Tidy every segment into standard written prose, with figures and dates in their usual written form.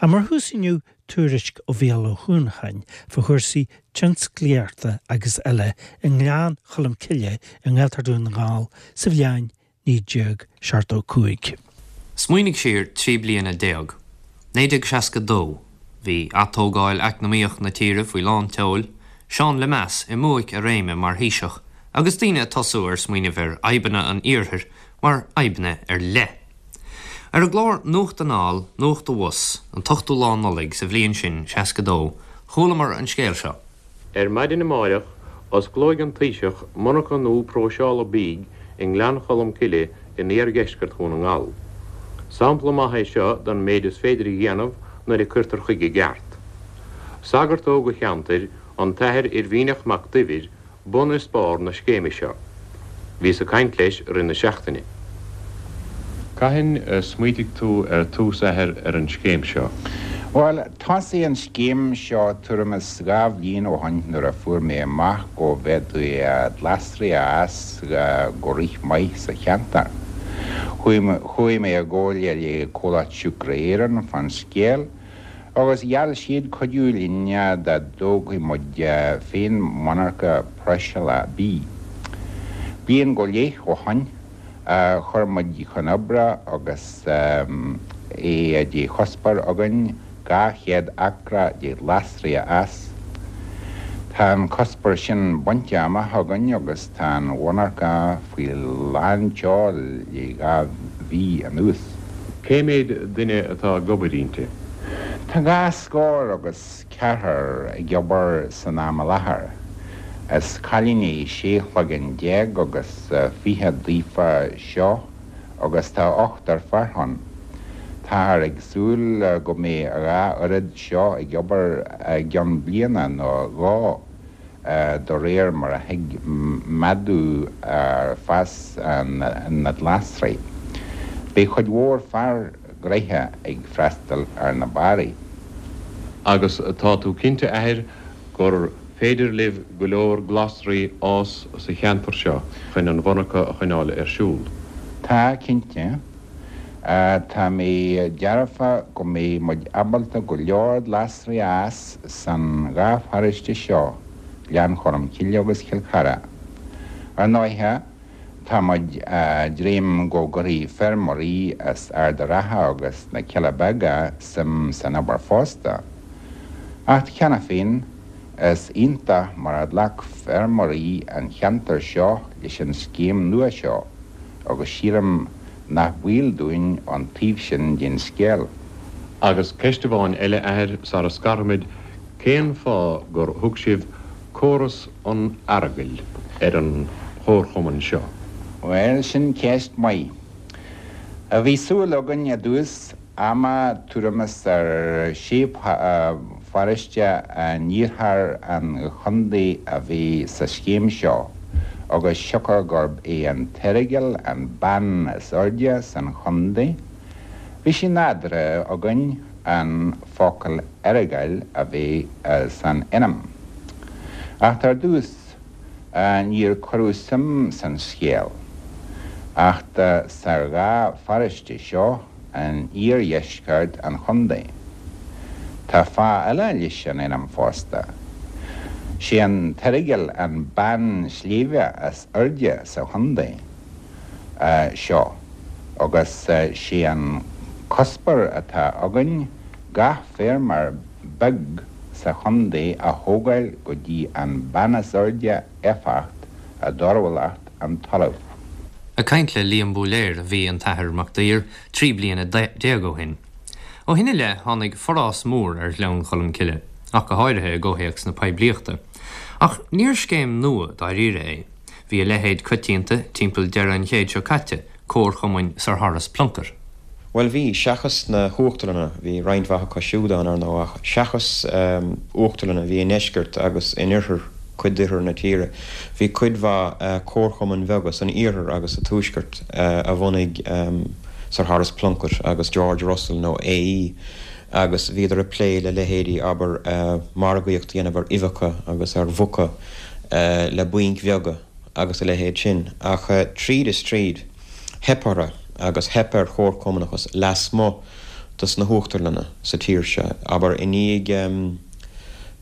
Ach mar thús inniu, tuairisc ó Mhícheál Ó hUanacháin fá chúrsaí tionsclaíochta agus eile i nGleann Cholm Cille i nGaeltacht Dhún na nGall sa bhliain 1975. Smaoinigh siar 13 bliana. 1962. Bhí atógáil eacnamaíoch na tíre faoi lán tseoil, Seán Lemass i mbuaic a réime mar Thaoiseach agus daoine ag tosú ar smaoineamh ar fhadhbanna an iarthair mar fhadhbanna ar leith. Ar an gclár Nuacht Anall, Nuacht Abhus, an t-ochtú lá Nollaig sa bhliain sin, 62, chualamar an scéal seo. Ar maidin amáireach, osclóidh an Taoiseach monarcha nua próiseála bídh i nGleann Cholm Cille in iardheisceart Dhún na nGall. Sampla maith é seo den méid is féidir a dhéanamh nuair a cuirtear chuige i gceart. Sagart óg an cheantair, an tAthair Oirmhíneach Mac Duibhir, bun is barr na scéime seo. Bhíos ag caint leis i rith na seachtaine. Cathain a smaoitigh tú ar tús, a Athair, ar an scéim seo? Bhuel, thosaigh an scéim seo tuairim is 2 bhliain ó shoin nuair a fuair mé amach go bhféadfaí glasraí a fhás go rímhaith sa cheantar. Chuaigh mé i gcomhairle le Comhlacht Siúcra Éireann fán scéal Agus gheall siad cuidiú linn dá dtógfadh muid féin monarcha próiseála bídh. Bliain go leith ó shoin, chuir muid chun oibre agus é de chuspóir againn 200 acra de ghlasraí a fhás. Tá an cuspóir sin bainte amach againn agus tá an mhonarcha faoi lán tseoil le 2 mhí anuas. Cé mhéad duine atá ag obair inti? Tá dhá scór agus ceathrar ag obair san am i láthair. Is cailíní 16 chloigeann agus 20 daofa seo agus tá ochtar fear ann. Táthar ag súil go mbeidh a dhá oiread seo ag obair i gceann bliana nó dhó. de réir mar a thig méadú ar fás na nglasraí. Beidh cuid mhór fear gnoithe ag freastal ar na barraí. Agus tá tú cinnte, a Athair, gur féidir libh go leor glasraí fhás sa cheantar seo chun an mhonarcha a choinneáil ar siúl? Tá, cinnte. Tá mé dearfa go mbeidh muid ábalta go leor glasraí a fhás san dhá pharóiste seo, Gleann Cholm Cille agus Cill Chartha. Ar ndóighe, tá muid a' dréim go gcuirfidh feirmeoirí as Ard a' Rátha agus na Cealla Beaga suim san obair fosta. Acht cheana féin, is iontach mar a ghlac feirmeoirí an cheantair seo leis an scéim nua seo. agus sílim nach baol dúinn an taobh sin den scéal. Agus ceist amháin eile, a Athair, sara scarfaimid, cén fáth gur thug sibh Córas an Earagail ar an chomharchumann seo? Bhuel, sin ceist mhaith. Bhí súil againn i dtús ama tuairim is ar sé pharóiste in iarthar an chontae a bheith sa scéim seo agus siocair gurb é an tEaragail an beann is airde san chontae, bhí sé nádúrtha againn an focal Earagail a bheith san ainm. Acht ar dtús níor cuireadh suim san scéal acht sa dhá pharóiste seo in iardheisceart an chontae. Tá fáth eile leis an ainm fosta. Sé an tEaragail an beann sléibhe is airde sa chontae seo agus sé an cuspóir atá againn gach feirmeoir beag sa chontae a thógáil go dtí an beann is airde éifeacht i dtorthúlacht an talaimh. Ag caint le Liam Búiléar a bhí an tAthair Mac Duibhir 13 bliana ó shin. Ó shin i leith tháinig forás mór ar Ghleann Cholm Cille, ach go háirithe i gcomhthéacs na poiblíochta. Ach níor scéim nua dáiríre é. Bhí a leithéid coitianta timpeall deireadh an chéid seo caite, comharchumainn Sir Horace Plunkett. Bhuel bhí, seachas na huachtarlanna, bhí roinnt mhaith acu siúd ann, ar ndóigh, ach seachas uachtarlanna a bhí i ndeisceart agus in oirthear, cuid d'oirthear na tíre, bhí cuid mhaith comharchumainn bheaga san iarthar agus sa tuaisceart a bhunaigh Sir Horace Plunkett agus George Russell nó AE agus bhíodar ag plé le leithéidí, abair, margaíocht a dhéanamh ar uibheacha agus ar mhuca le bainc bheaga agus a leithéid sin. Ach tríd is tríd. Theip orthu agus theip ar chomharchumannachas lasmuigh dos na huachtarlanna sa tír seo, abair i ndiaidh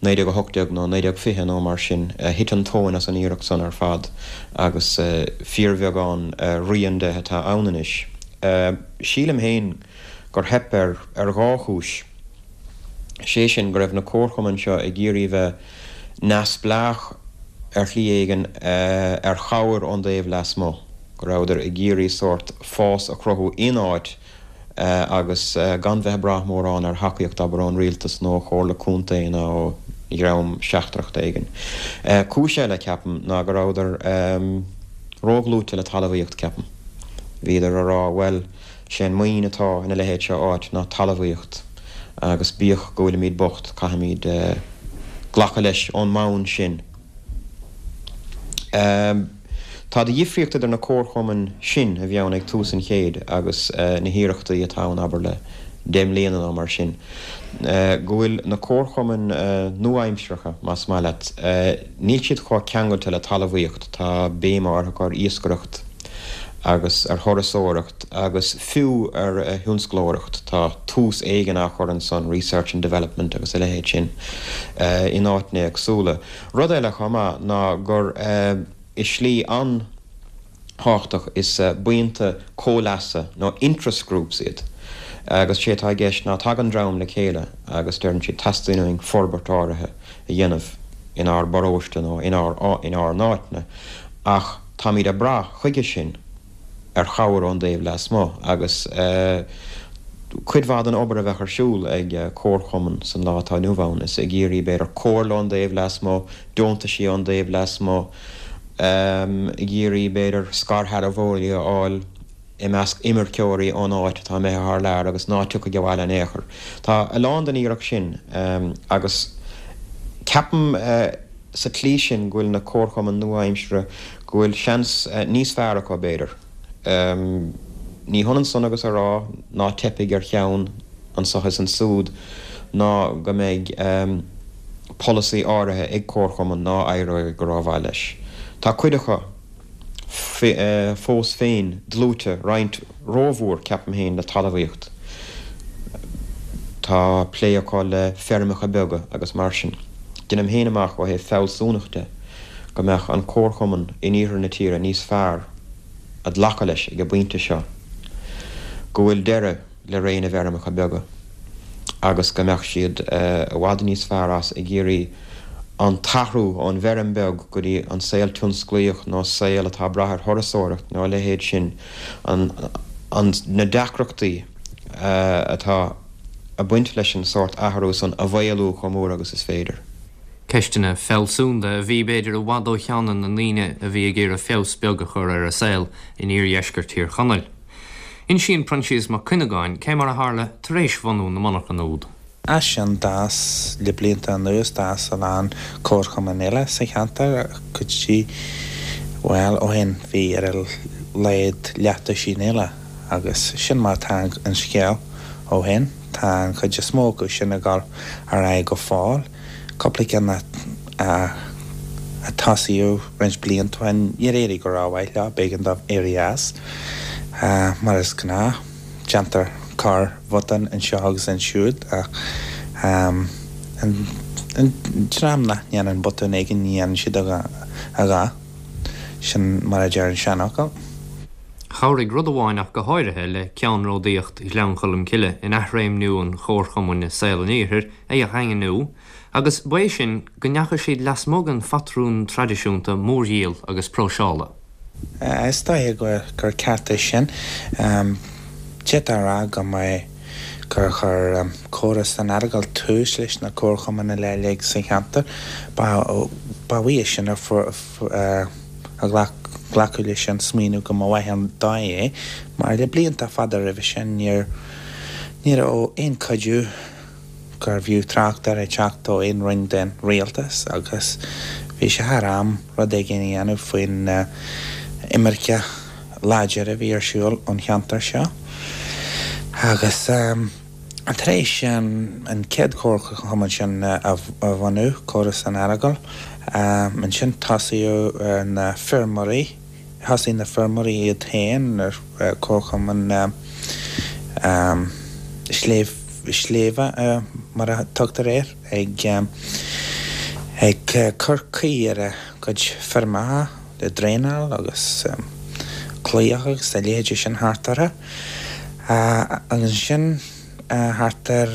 1918 nó 1920 nó mar sin, thit an tóin as an iarracht san ar fad agus fíorbheagán rian de atá ann anois. Sílim féin gur theip air ar dhá chúis, sé sin go raibh na comharchumainn seo ag iarraidh bheith neamhspleách ar shlí éigin ar chabhair ón dtaobh lasmuigh, go rabhadar ag iarraidh sórt fás a chruthú in áit agus gan bheith ag brath mórán ar thacaíocht, abair, ón rialtas nó ó chomhairle contae nó ó dhream seachtrach éigin. Cúis eile, ceapaim, ná go rabhadar ródhlúite le talmhaíocht, ceapaim. Bhíodar a rá, bhuel, sé an maoin atá ina leithéid seo áit ná talmhaíocht agus bíodh go bhfuilimid bocht, caithfimid glacadh leis ón mbonn sin. Tá de dhifríocht idir na comharchumainn sin a bhí ann ag tús an chéid agus na hiarrachtaí atá ann, abair, le deich mbliana nó mar sin, go bhfuil na comharchumainn nua-aimseartha, más maith leat, níl siad chomh ceangailte le talmhaíocht, tá béim áirithe acu ar iascaireacht agus ar thurasóireacht agus fiú ar thionsclóireacht, tá tús éigin á chur ansan, research and development agus a leithéid sin, in áiteanna éagsúla. Rud eile chomh maith ná gur i slí an-thábhachtach is buíonta comhleasa nó interest groups iad agus sé atá i gceist ná tagann dream le chéile agus deireann siad teastaíonn uainn forbairt áirithe a dhéanamh inár bparóiste nó inár inár n-áiteanna ach táimid ag brath chuige sin ar chabhair ón dtaobh lasmuigh agus cuid mhaith den obair a bheadh ar siúl ag comharchumann san lá atá inniu ann is ag iarraidh, b'fhéidir, comhairle ón dtaobh lasmuigh, deontaisí ón dtaobh lasmuigh, ag iarraidh, b'fhéidir, scairshealbhóirí a fháil i measc imirceoirí ón áit atá imithe thar lear agus ná tiocfaidh abhaile in aon chor. Tá a lán den iarracht sin agus ceapaim sa tslí sin go bhfuil na comharchumainn nua-aimseartha, go bhfuil seans níos fearr acu, b'fhéidir. Ní hionann san agus a rá ná teipfidh ar cheann anso is ansúd ná go mbeidh polasaí áirithe ag comharchumann ná éireoidh go rómhaith leis. Tá cuid acu fós féin dlúite, roinnt rómhór, ceapaim féin, le talmhaíocht. Tá plé acu le feirmeacha beaga agus mar sin. Deinim féin amach ó thaobh fealsúnacht de go mbeadh an comharchumann in iarthar na tíre níos fearr a ghlacadh leis ag an bpointe seo go bhfuil deireadh le ré na bhfeirmeacha beaga agus go mbeadh siad i bhfad níos fearr as ag iarraidh an t-athrú ón bhfeirm bheag go dtí an saol tionsclaíoch nó saol atá ag brath ar thurasóireacht nó a leithéid sin, an, na deacrachtaí atá ag baint leis an sórt athrú san a mhaolú chomh mór agus is féidir. Ceisteanna fealsúnda a bhí, b'fhéidir, i bhfad ó cheanna na ndaoine a bhí ag iarraidh feabhas beag a chur ar a saol in iardheisceart Thír Chonaill. Insíonn Proinsias Mac Cuinneagáin cé mar a tharla tar éis bhunú na monarchan úd. As sin d'fhás, le blianta anuas, d'fhás a lán comharchumann eile sa cheantar, go dtí, bhuel, ó shin bhí ar a laghad leathduisín eile agus sin mar atá an scéal ó shin. Tá an chuid is mó acu sin ag dul ar aghaidh go fóill. Cúpla ceann a tosaíodh roinnt blianta ó shin, níor éirigh go rómhaith leo, b'éigean dóibh éirí as. Mar is gnáth, déantar corr-bhotún anseo agus ansiúd ach an dream nach ndéanann botún éigin, ní dhéanann siad a dhath. Sin mar a deir an seanfhocal. Chabhraigh rud amháin ach go háirithe le ceannródaíocht Ghleann Cholm Cille in athréimniú an chomharchumainn i saol an iarthair a dhaingniú, agus ba é sin go ndeachaigh siad lasmuigh den phatrún traidisiúnta mórdhíol agus próiseála. Is dóiche gur ceart é sin. D'fhéadfá a rá go mba gur chuir Córas an Earagail tús leis na comharchumainn uilig sa cheantar. Ba uaidh sin a glacadh leis an smaoineamh go mba mhaith an dóigh é, mar le blianta fada roimhe sin ní raibh aon chuidiú gurbh fhiú trácht air ag teacht ó aon roinn den rialtas agus bhí sé thar am rud éigin a dhéanamh faoin imirce láidir a bhí ar siúl ón cheantar seo. Agus tar éis an chéad chomharchumann sin a bhunú, Córas an Earagail, ansin tosaíodh ar na feirmeoirí, Thosaigh na feirmeoirí iad féin ar comharchumann. Sléibh, Sléibhe mar a tugtar air, ag ag cur caoi ar a gcuid feirmeacha le draenáil agus claíocha agus a leithéidí sin thart orthu. Agus ansin thart ar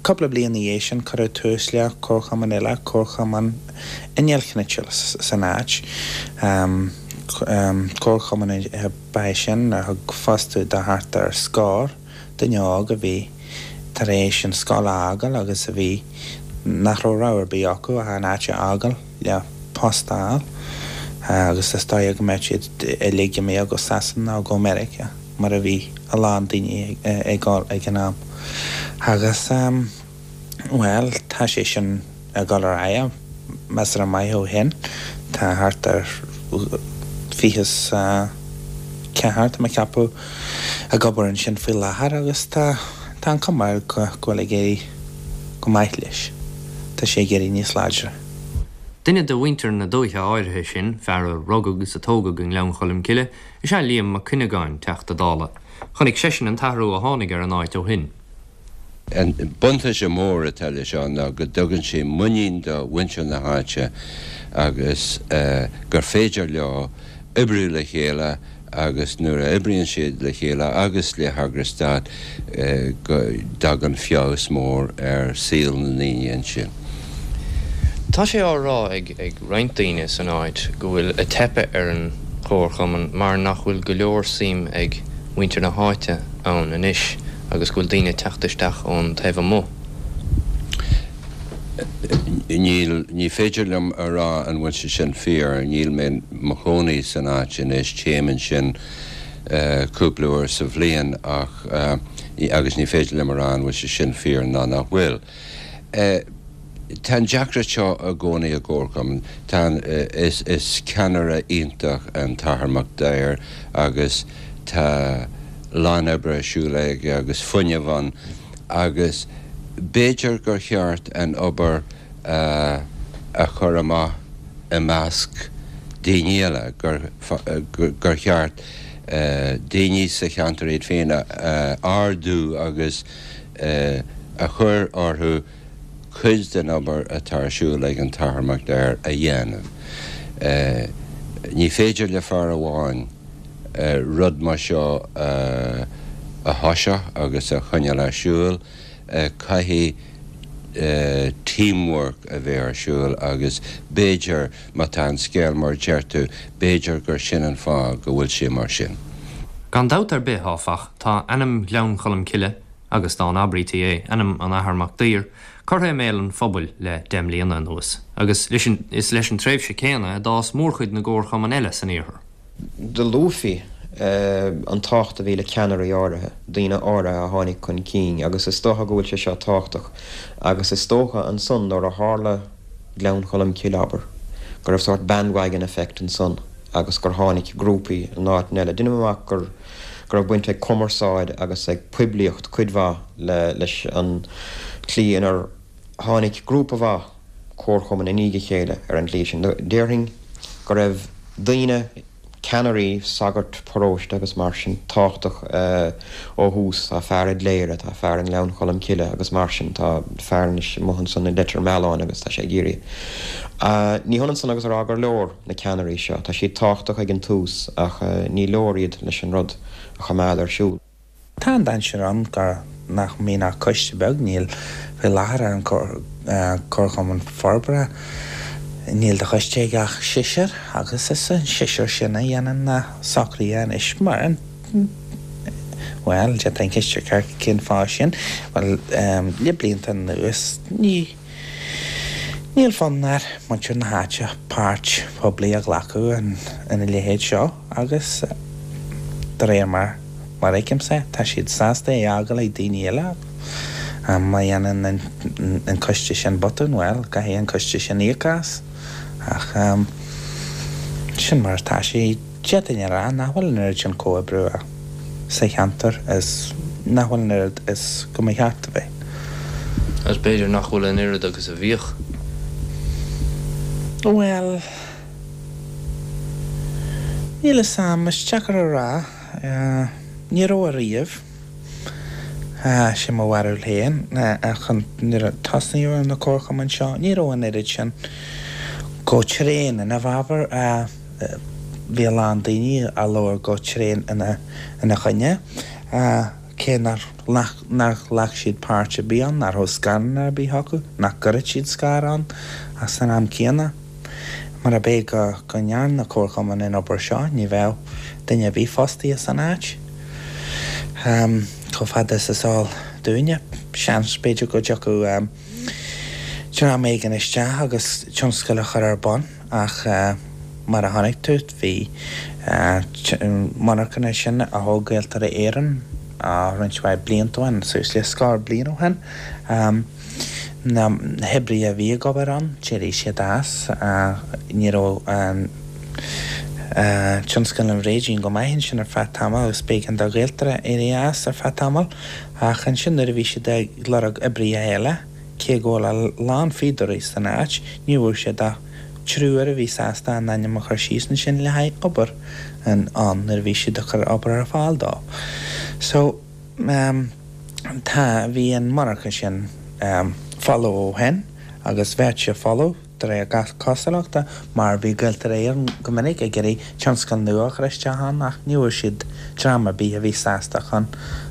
cúpla bliain ina dhiaidh sin cuireadh tús le comharchumann eile, Comharchumann Innealchnite san áit. Comharchumann ab ea é sin a thug fostú do thart ar scór duine óg a bhí tar éis an scoil a fhágáil agus a bhí nach raibh rogha ar bith acu ach an áit a fhágáil le post a fháil agus is dóigh go mbeadh siad uilig imithe go Sasana nó go Meiriceá mar a bhí a lán daoine ag dul ag an am. Agus, bhuel, tá sé sin ag dul ar aghaidh measartha maith ó shin. Tá thart ar 24, tá mé ag ceapadh, ag obair ansin faoi láthair agus tá tá an cuma air go bhfuil ag éirí go maith leis. Tá sé ag éirí níos láidre. Duine de mhuintir na dúiche áirithe sin, fear a rugadh agus a tógadh i nGleann Cholm Cille, is ea Liam Mac Cuinneagáin, Teachta Dála. Chonaic seisean an t-athrú a tháinig ar an áit ó shin. An buntáiste mór atá leis seo ná go dtugann sé muinín do mhuintir na háite agus gur féidir leo oibriú le chéile agus nuair a oibríonn siad le chéile agus le heagrais stáit go dtagann feabhas mór ar saol na ndaoine ansin. Tá sé á rá ag roinnt daoine san áit go bhfuil ag teipeadh ar an chomharchumann mar nach bhfuil go leor suim ag muintir na háite ann anois agus go bhfuil daoine ag teacht isteach ón taobh amuigh. Níl, ní féidir liom a rá an bhfuil sé sin fíor, níl mé mo chónaí san áit anois, téim ansin cúpla uair sa bhliain ach, agus ní féidir liom a rá an bhfuil sé sin fíor ná nach bhfuil. Tá an deacracht seo i gcónaí i gcomharchumann. Tá an, is, is ceannaire iontach an tAthair Mac Daidhir agus tá lán oibre ar siúl aige agus fuinneamh ann agus b'fhéidir gur cheart an obair a, a chur amach i measc daoine eile, gur, gur cheart daoine sa cheantar iad féin a ardú agus a chur orthu cuid den obair atá ar siúl ag an tAthair Mac Daidhir a dhéanamh. Ní féidir le fear amháin rud mar seo a thoiseacht agus a choinneáil ar siúl, caithfidh teamwork a bheith ar siúl agus b'fhéidir, má tá an scéal mar a deir tú, b'fhéidir gur sin an fáth go bhfuil sé mar sin. Gan dabht ar bith, áfach, tá ainm Ghleann Cholm Cille, agus dá n-abraítí é, ainm an Athar Mac Daidhir, curtha i mbéal an phobail le deich mbliana anuas, agus is leis an tréimhse céanna a d'fhás mórchuid na gcomharchumann eile san iarthar. Do luafaí an tábhacht a bhí le ceannairí áirithe, daoine áirithe a tháinig chun cinn, agus is dócha go bhfuil sé seo tábhachtach, agus is dócha ansan nuair a tharla Gleann Cholm Cille, abair, go raibh sórt bandwagon effect ansan agus gur tháinig grúpaí in áiteanna eile. Deinim amach gur go raibh baint ag cumarsáid agus ag poiblíocht cuid mhaith le leis an tslí inar tháinig grúpa mhaith comharchumann i ndiaidh a chéile ar an tslí sin. Déarfainn go raibh daoine, ceannairí, sagairt paróiste agus mar sin, tábhachtach ó thús. Tá fear i gCléire, tá fear i nGleann Cholm Cille agus mar sin. Tá fear anois amuigh ansan i Leitir Mealláin agus tá sé ag iarraidh. Ní hionann san agus a rá gur leor na ceannairí seo. Tá siad tábhachtach ag an tús ach ní leor iad leis an rud a choimeád ar siúl. Tá an dainséar ann gur nach mbíonn ach coiste beag, níl faoi láthair ar an Comharchumann Forbartha, níl de choiste ag ach seisear agus is an seisear sin a dhéanann na socruithe anois mar an, bhuel, d'fhéadfá an cheist a chur cén fáth sin? Bhuel, le blianta anuas ní. Níl fonn ar muintir na háite páirt poiblí a ghlacadh ina leithéid seo agus de réir mar a fheicimse tá siad sásta é a fhágáil ag daoine eile. Má dhéanann an coiste sin botún, bhuel, caithfidh an coiste sin íoc as. Ach sin mar atá sé. D'fhéadfainn a rá nach bhfuil an oiread sin comhoibriú sa cheantar is nach bhfuil an oiread is go mba cheart a bheith. Agus b'fhéidir nach bhfuil an oiread agus a bhíodh. Bhuel, níl fhios a'm, is deacair a rá. Ní raibh ariamh. Sin mo bharúil féin. Ach nuair a tosnaíodh ar na comharchumainn seo, ní raibh an oiread sin go tréan ina bhfabhar. Bhí a lán daoine a labhair go tréan ina choinne, cé nár ghlac siad páirt ar bith ann, nach raibh scaireanna ar bith acu, nach gcuirfeadh siad scair ann ach san am céanna. Murab é go ndearna na comharchumainn an obair seo, ní bheadh duine ar bith fostaithe san áit. Chomh fada is is eol dúinne, seans, b'fhéidir go dtiocfadh dream éigin isteach agus tionscal a chur ar bun ach mar a chonaic tú, bhí monarchana sin a thóg Gaeltarra Éireann roinnt mhaith blianta ó shin, suas le scór bliain ó shin. Na hoibrithe a bhí ag obair ann, d'éirigh siad as. Ní raibh an tionscal an bhréidín go maith ansin ar feadh tamaill agus b'éigean do Ghaeltarra éirí as ar feadh tamaill. Ach ansin nuair a bhí siad ag lorg oibrithe eile, cé go bhfuil a lán fíodóirí san áit, ní bhfuair siad ach triúr a bhí sásta a n-ainm a chur síos ansin le haghaidh obair ann nuair a bhí siad ag cur obair ar fáil dóibh. So. Tá, bhí an monarcha sin folamh ó shin agus bheadh sé folamh de réir gach cosúlachta mar bhí Gaeltarra Éireann go minic ag iarraidh tionscal nua a chur isteach ann ach ní bhfuair siad dream ar bith a bhí sásta chun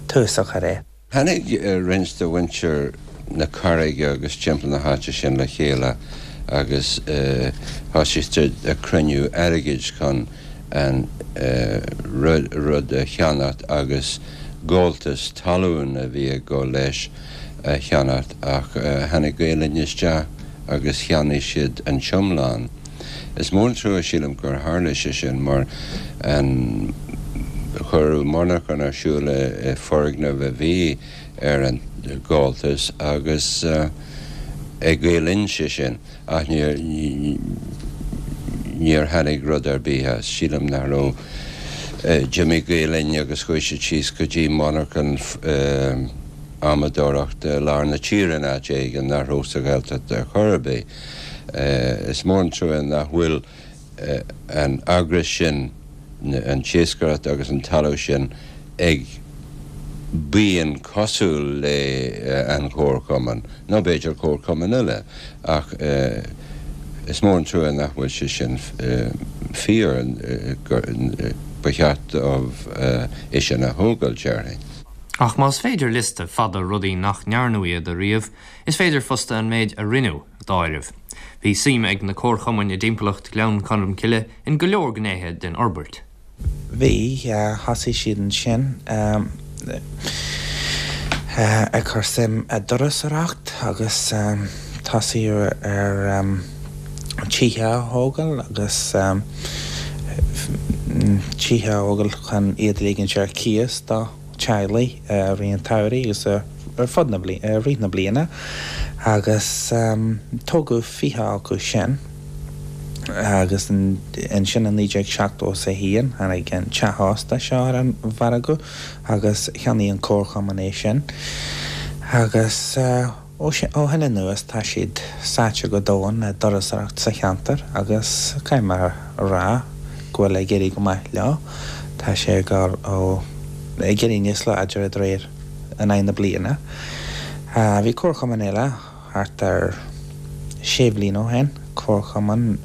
tús a chur air. Tháinig roinnt de mhuintir na Carraige agus timpeall na háite sin le chéile agus thosaigh siad ag cruinniú airgid chun an rud a cheannacht agus gabháltas talún a bhí ag dul leis a cheannacht ach tháinig Gael Linn isteach agus cheannaigh siad an t-iomlán. Is mór an trua sílim gur tharla sé sin mar an cuireadh monarchan ar siúl i foirgneamh a bhí ar an gabháltas agus ag Gael Linn sé sin. Ach níor, níor tháinig rud ar bith as. Sílim nach raibh, d'imigh Gael Linn agus chuaigh siad síos go dtí monarchan adhmadóireachta i lár na tíre in áit éigin nach raibh sa Ghaeltacht ar chor ar bith. Is mór an trua nach bhfuil an eagras sin, an t-iascaireacht agus an talamh sin ag buíon cosúil le an Chomharchumann, nó b'fhéidir comharchumann eile, ach is mór an trua nach bhfuil sé sin fíor, ba cheart dóibh é sin a thógáil, déarfainn. Ach más féidir liosta fada rudaí nach ndearnadh iad a ríomh, is féidir fosta an méid a rinneadh a d'áireamh. Bhí suim ag na comharchumainn i dtimpeallacht Ghleann Cholm Cille in go leor gnéithe den fhorbairt. Bhí, thosaigh siad ansin ag cur suim i dturasóireacht agus tosaíodh ar tithe a thógáil agus tithe a thógáil chun iad a ligint ar cíos do teaghlaigh i rith an tsamhraidh agus ar fud na, i rith na bliana agus tógadh 20 acu sin agus ansin i 1971 tháinig an teach ósta seo ar an mhargadh agus cheannaigh an comharchumann é sin agus. Ó shin anuas tá siad sáite go domhain i dturasóireacht sa cheantar agus caithfidh mé a rá go bhfuil ag éirí go maith leo. Tá sé ag dul ó ag éirí níos láidre de réir in aghaidh na bliana. Bhí comharchumann eile thart ar sé bhliain ó shin, comharchumann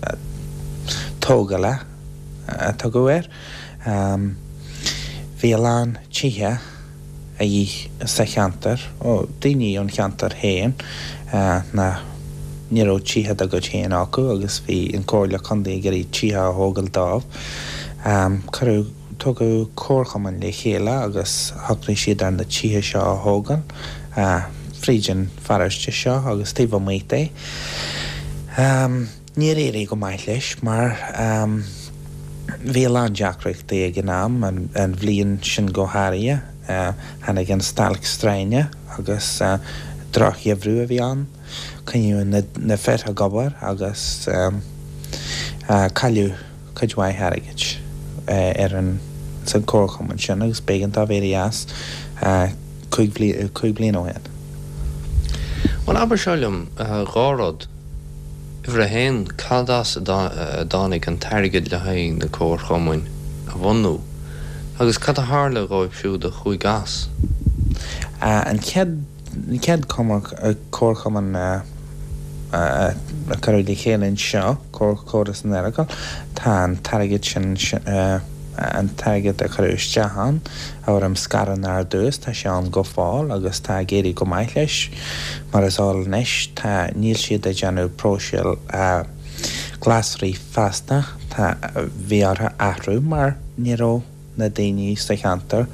tógála a tugadh air. Bhí a lán tithe. a dhíth sa cheantar, ó daoine ón cheantar féin nach ní raibh tithe dá gcuid féin acu agus bhí an Comhairle Contae ag iarraidh tithe a thógáil dóibh. Cuireadh, tugadh comharchumann le chéile agus shocraigh siad ar na tithe seo a thógáil fríd an pharóiste seo agus taobh amuigh de. Níor éirigh go maith leis mar bhí a lán deacrachtaí ag an am, an bhliain sin go háirithe. Tháinig an stailc stroighne agus drochgheimhreadh a bhí ann. Coinníodh na fir ag obair agus cailleadh cuid mhaith airgid ar an san comharchumann sin agus b'éigean dóibh éirí as 5 bliana ó shin. Bhuel, abair seo liom, dhá rud. Uimhir a haon, cad as a dtáinig an t-airgead le haghaidh na comharchumainn a bhunú? Agus cad a tharla dhóibh siúd a chuaigh as? An chéad an chéad comharchumann a cuireadh le chéile anseo, Comhar san Earagail, tá an t-airgead sin, an t-airgead a cuireadh isteach ann i bhfoirm scaireanna ar dtús, tá sé ann go fóill agus tá ag éirí go maith leis. Mar is eol anois, tá, níl siad ag déanamh próiseáil glasraí feasta, tá, bhí orthu athrú mar ní raibh na daoine sa cheantar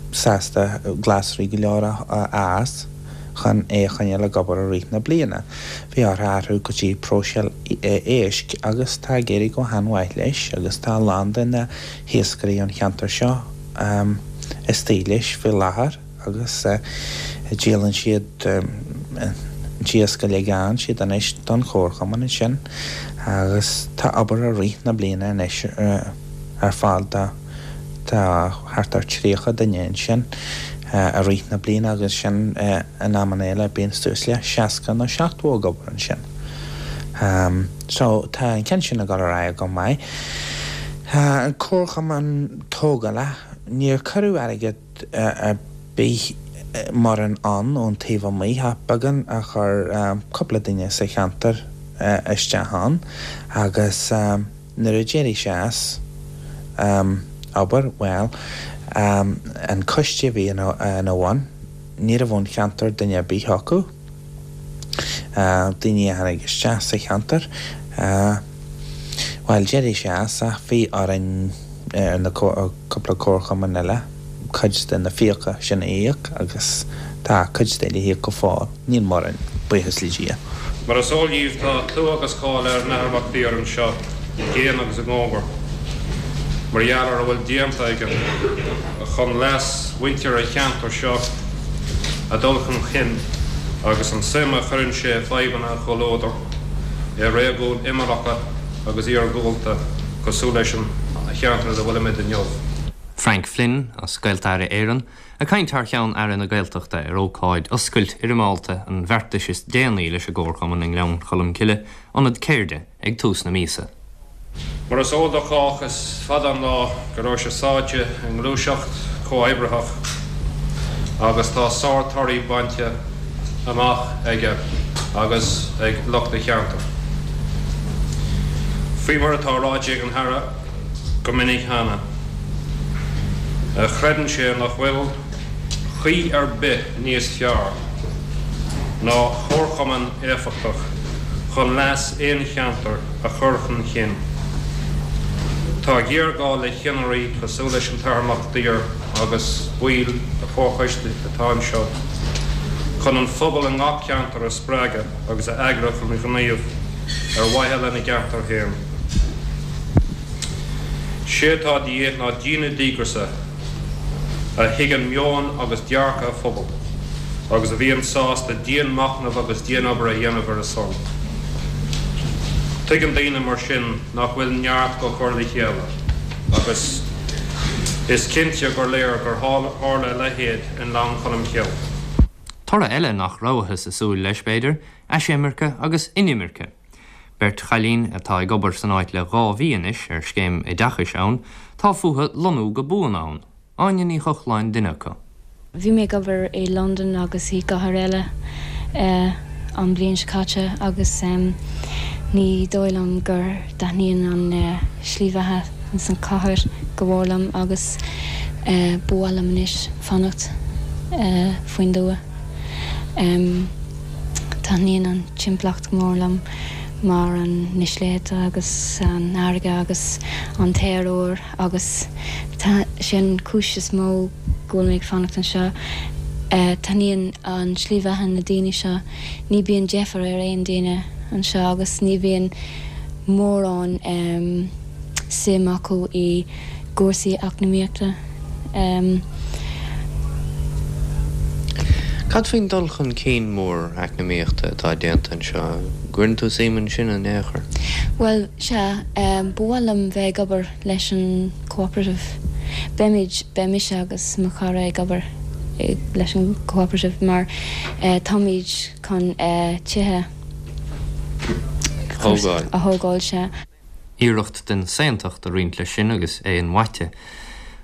sásta glasraí go leor a fhás chun é a choinneáil ag obair i rith na bliana. Bhí orthu athrú go dtí próiseáil éisc agus tá ag éirí go han-mhaith leis agus tá a lán de na hiascairí ón cheantar seo istigh leis faoi láthair. agus díolann siad an t-iasc uilig a fhaigheann siad anois don chomharchumann ansin agus tá obair i rith na bliana anois ar fáil do tá thart ar 30 duine ansin i rith na bliana agus sin in amanna eile bíonn suas le 60 nó 70 ag obair ansin. So tá an ceann sin ag dul ar aghaidh go maith. An comharchumann tógála, níor cuireadh airgead ar bith mórán ann ón taobh amuigh ach beagán a chuir cúpla duine sa cheantar isteach ann agus nuair a d'éirigh sé as obair, bhuel, an coiste a bhí ina bhun, ní raibh ón cheantar duine ar bith acu, daoine a tháinig isteach sa cheantar, bhuel, d'éirigh sé as ach bhí orainn ar na cúpla comharchumann eile cuid de na fiacha sin a íoc agus tá cuid de le híoc go fóill, níl mórán, buíochas le Dia. Mar is eol dhíbh tá clú agus cáil ar an Athair Mac Lir anseo i gcéin agus i gcóngar mar gheall ar a bhfuil déanta aige chun leas mhuintir an cheantair seo a dhul chun chinn agus an suim a chuireann sé i bhfadhbanna an chomhluadair i réigiúin imeallacha agus iargúlta cosúil leis an cheantar ina bhfuilimid inniu. Frank Flynn, as Gaeltarra Éireann, ag caint thar cheann Aire na Gaeltachta ar ócáid oscailt fhoirmeálta an bheartais is déanaí leis an gComharchumann i nGleann Cholm Cille, ionad ceirde, ag tús na míosa. Mar is eol do chách, is fada an lá go raibh sé sáite i ngluaiseacht chomhoibritheach agus tá sár-torthaí bainte amach aige agus ag lucht a cheantair. Faoi mar atá ráite ag an Aire go minic cheana, creideann sé nach bhfuil caoi ar bith níos fearr ná comharchumann éifeachtach chun leas aon cheantair a chur chun chinn. Tá géarghá le ceannairí cosúil leis an tAthair Mac Lir agus baill a chomharchoiste atá anseo chun an phobal i ngach ceantar a spreagadh agus a eagrú chun gníomh ar mhaithe lena gceantar féin. Sé atá de dhíth ná daoine díograiseacha a thuigeann meon agus dearcadh a phobail agus a bhíonn sásta dian-machnamh agus dian-obair a dhéanamh ar a son. Tuigeann daoine mar sin nach bhfuil neart go cur le chéile agus is cinnte gur léir gur tharla a leithéid i nGleann Cholm Cille. Toradh eile nach rabhthas ag súil leis, b'fhéidir, aisimirce agus inimirce. Beirt chailín atá ag obair san áit le 2 mhí anois ar scéim oideachais ann, tá fúthu lonnú go buan ann. Áine Ní Chochláin duine acu. Bhí mé ag obair i Londain agus i gcathair eile an bhliain seo caite agus ní dóigh liom gur dtaitníonn an slí bheatha ins an chathair go mhór liom agus ba mhaith liom anois fanacht faoin dtuath. Taitníonn an timpeallacht go mór liom mar an na sléibhte agus an fharraige agus an t-aer úr agus sé an cúis is mó go bhfuil mé ag fanacht anseo. Taitníonn an slí bheatha na daoine seo, ní bíonn deifir ar aon duine anseo agus ní bhíonn mórán suim acu i gcúrsaí eacnamaíochta. Cad faoin dul chun cinn mór eacnamaíochta atá déanta anseo? An gcuireann tú suim ansin in aon chor? Bhuel, sea, ba mhaith liom bheith ag obair leis an cooperative. Beimid, beidh mise agus mo chara ag obair leis an cooperative mar táimid chun tithe a thógáil, sea. Iarracht den saontacht a roinnt leis sin agus é inmhaite.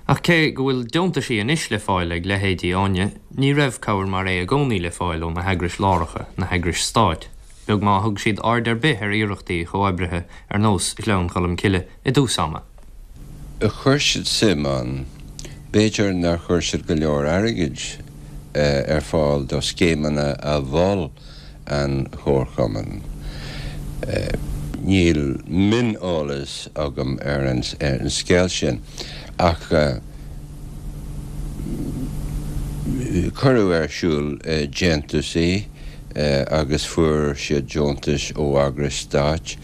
Ach cé go bhfuil deontaisí anois le fáil ag leithéidí Áine, ní raibh cabhair mar é i gcónaí le fáil ó na heagrais láracha, na heagrais stáit, beag má thug siad aird ar bith ar iarrachtaí chomhoibrithe ar nós Ghleann Cholm Cille i dtús ama. Chuir siad suim ann. B'fhéidir nár chuir siad go leor airgid ar fáil do scéimeanna a mhol an Chomharchumann. Níl mioneolas agam ar an scéal sin ach cuireadh ar siúl déantúsaí agus fuair siad deontais ó eagrais stáit.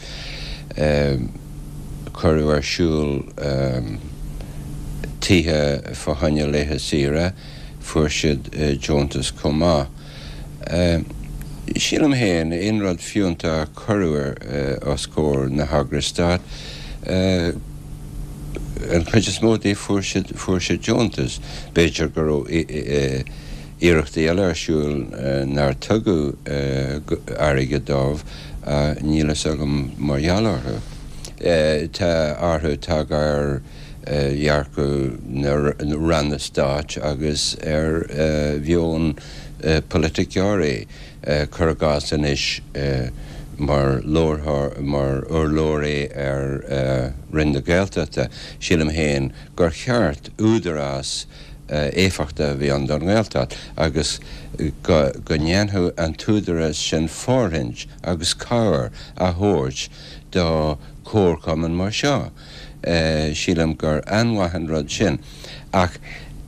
Cuireadh ar siúl tithe fá choinne laetha saoire, fuair siad deontas chomh maith. Sílim féin, aon rud fiúntach a cuireadh os comhair na heagrais stáit, an chuid is mó díobh fuair siad, fuair siad deontas. B'fhéidir go raibh iarrachtaí eile ar siúl nár tugadh airgead dóibh, níl fhios agam mar gheall orthu. Tá athrú tagtha ar dhearcadh na ranna stáit agus ar mheon polaiticeoirí, cuir i gcás anois mar mar urlabhraí ar Roinn na Gaeltachta, sílim féin gur cheart údarás éifeachtach a bheith ann don Ghaeltacht agus go ndéanfadh an t-údarás sin fóirithint agus cabhair a thabhairt do chomharchumainn mar seo. Sílim gur an-mhaith an rud sin. Ach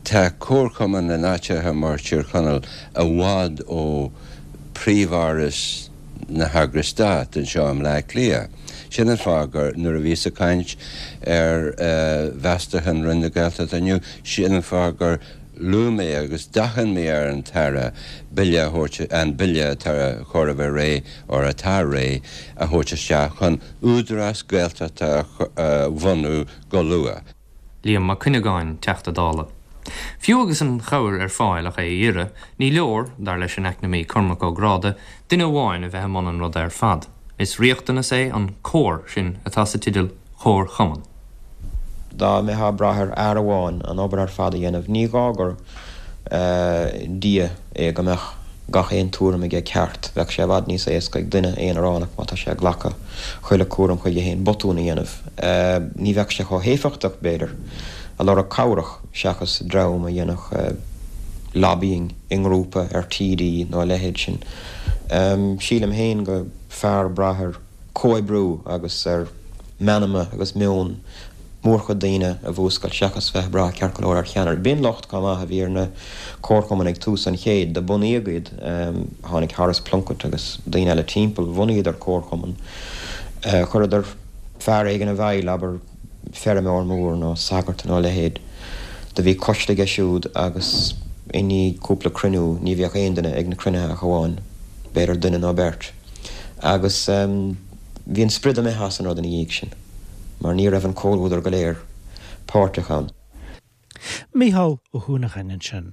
tá comharchumainn in áiteacha mar Tír Chonaill i bhfad ó phríomh-áras na heagrais stáit anseo i mBleá Cliath. Sin an fáth gur, nuair a bhíos ag caint ar mheastachán Roinn na Gaeltachta inniu, sin an fáth gur luaigh mé agus d'achain mé ar an tAire bille a thabhairt, an bille atá chóir a bheith réidh, or atá réidh, a thabhairt isteach chun Údarás Gaeltachta a bhunú go luath. Liam Mac Cuinneagáin, Teachta Dála. Fiú agus an chabhair ar fáil ach é a iarraidh, ní leor, dar leis an eacnamaí Cormac Ó Gráda, duine amháin a bheith i mbun an ruda ar fad. Is riachtanas é an comhar sin atá sa teideal Comharchumann. Dá mbeifeá ag brath ar fhear amháin an obair ar fad a dhéanamh, ní gá gur Dia é go mbeadh gach aon tuairim aige ceart. Bheadh sé i bhfad níos éasca ag duine aonaránach, má tá sé ag glacadh chuile cúram chuige féin, botún a dhéanamh. Ní bheadh sé chomh héifeachtach, b'fhéidir, ag lorg cabhrach seachas dream a dhéanfadh lobbying i ngrúpa ar TD nó a leithéid sin. Sílim féin go fearr brath ar comhoibriú agus ar meanma agus meon mórchuid daoine a mhúscailt seachas bheith ag brath ceart go leor ar cheannaire. B'in locht chomh maith a bhí ar na comharchumainn ag tús an chéid. Do bunaíodh iad, tháinig Horace Plunkett agus daoine eile timpeall, bhunaíodar comharchumann, chuireadar fear éigin i bhfeighil, abair feirmeoir mór nó sagart nó a leithéid. Do bhí coiste aige siúd agus i ndiaidh cúpla cruinniú ní bhíodh aon duine ag na cruinnithe ach amháin b'fhéidir duine nó beirt. Agus bhí an sprid imithe as an rud ina dhiaidh sin mar ní raibh an comhluadar go léir páirteach ann. Mícheál Ó hUanacháin ansin.